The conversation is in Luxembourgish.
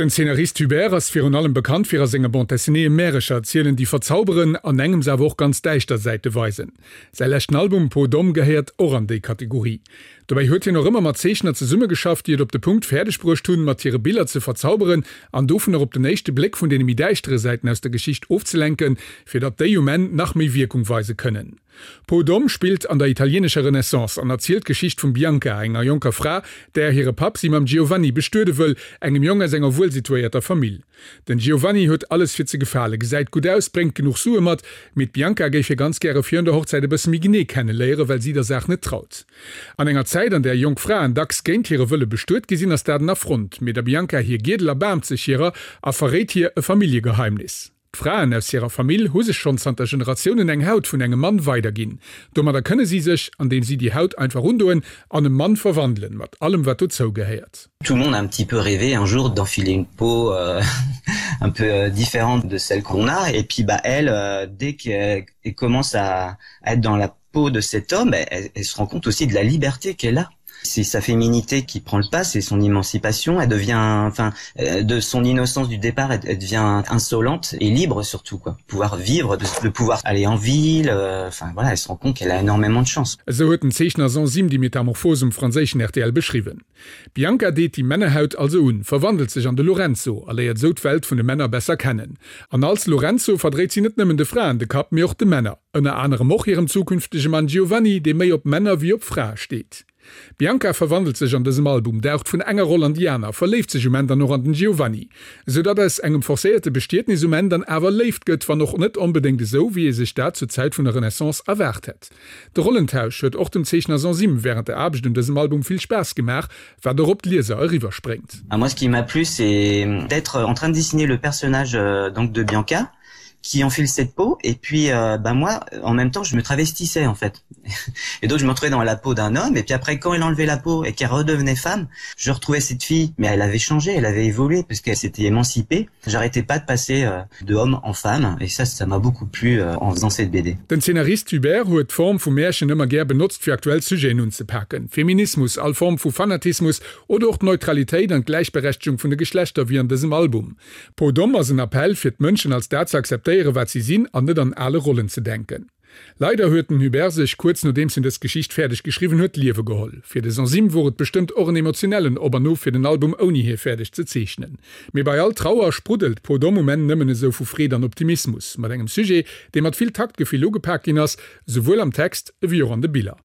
Den Zeenarist Hubert ass virun allem bekannt fir a senge Bande dessinéeë Märecher erzielen, déi verzauberen, an engems awer och ganz däischter Säite weisen. Säi leschten Album Peau d'Homme gehéiert och an déi Kategorie. Dobäi huet hien och ëmmer mat Zeechner zesummegeschafft, déi et op de Punkt fäerdeg bruecht hunn, mat hire Biller ze verzauberen an dovunner op den éischte Bléck vun deene méi däischtere Säiten aus der Geschicht ofzelenken, fir datt déi um Enn nach méi Wierkung weise kënnen. Peau d'Homme spillt an der italienescher Renaissance an erzielt d'Geschicht vum Bianca, enger jonker Fra, där hire Papp si mam Giovanni bestuede wëll, engem Jong aus enger wuelsituéierter Famill. Den Giovanni huet alles fir ze gefalen, gesäit gutt aus, bréngt genuch Sue mat, mee d'Bianca géif hie ganz gäre virun der Hochzäit e bësse méi genee kenne léieren, well si der Saach net traut. An enger Zäit, an där jonk Fraen dacks géint hire Wëlle bestuet gi sinn, ass dat en Affront, mee der Bianca hir Giedel erbaarmt sech hirer a verréit hir e Familljegeheimnis. D'Fraen aus hirer Famill hu sech schonn zanter Generatiounen eng Haut vun engem Mann weiderginn. Domadder kënne si sech, andeem si déi Haut einfach undoen, an e Mann verwandelen, mat allem wat dozou gehéiert. Tout le monde a un petit peu rêvé un jour d'enfiler une peau euh, un peu euh, différente de celle qu'on a et puis bah elle euh, dès qu'elle commence à, à être dans la peau de cet homme elle, elle se rend compte aussi de la liberté qu'elle a c'est sa féminité qui prend le pas c'est son émancipation elle devient enfin euh, de son innocence du départ elle, elle devient insolente et libre surtout quoi pouvoir vivre de, de pouvoir aller en ville euh, enfin voilà elle se rend compte qu'elle a énormément de chance Esou huet den Zeechner Sansim déi Metamorphose um franséischen rtl beschriwwen. D'Bianca deet déi Männerhaut also un, verwandelt sech an de Lorenzo a léiert esou d'Welt vun de Männer besser kennen. An als Lorenzo verdréit si net nëmmen de Fraen de Kapp, mee och de Männer. Ënner anerem och hirem zukünftege Mann Giovanni, dee méi op Männer wéi op Frae steet. D'Bianca verwandelt sech an dësem Album, daucht vun enger Roll an déi aner, verléift sech um Enn dann och an den Giovanni, esou datt aus engem forcéierte Bestietnis um Enn dann awer Léift gëtt, wann och net onbedéngt esou, wéi ee sech dat zur Zäit vun der Renaissance erwaart hätt. De Rollentausch huet och dem Zeechner Sansim wärend der Aarbecht un dësem Album vill Spaass gemaach, wat och op d'Lieser eriwwerspréngt. Moi ce qui m'a plu c'est d'être en train de dessiner le personnage donc de Bianca qui enfile cette peau et puis euh, bah moi en même temps je me travestissais en fait et donc je me retrouvais dans la peau d'un homme et puis après quand elle enlevait la peau et qu'elle redevenait femme je retrouvais cette fille mais elle avait changé elle avait évolué parce qu'elle s'était émancipée j'arrêtais pas de passer euh, de homme en femme et ça ça m'a beaucoup plu euh, en faisant cette BD. Den Zeenarist Hubert huet d'Form vu Märchen ëmmer gär benotzt fir aktuell Sujeten unzepaken, Feminismus, all Form vu Fanatismus oder och d'Neutralitéit an d'Gläichberechtegung vun de Geschlechter wéi an dësem Album. Peau d'Homme ass en Appell fir d'Mënschen als dat ze akzeptéieren wat si sinn an net an ale Rollen ze denken. Leider huet den Hubert sech, kuerz nodeems en dës Geschicht fäerdeg geschriwwen huet, d'Liewe geholl. Fir de Sansim wor et bestëmmt och en emotionellen Op an Of fir den Album ouni hie fäerdeg ze zeechnen. Mee bei all Trauer spruddelt Peau d'Homme um Enn nëmmen esou vu Freed an Optimismus, mat engem Sujet, dee mat vill Taktgefill ugepak ginn ass, souwuel am Text ewéi och an de Biller.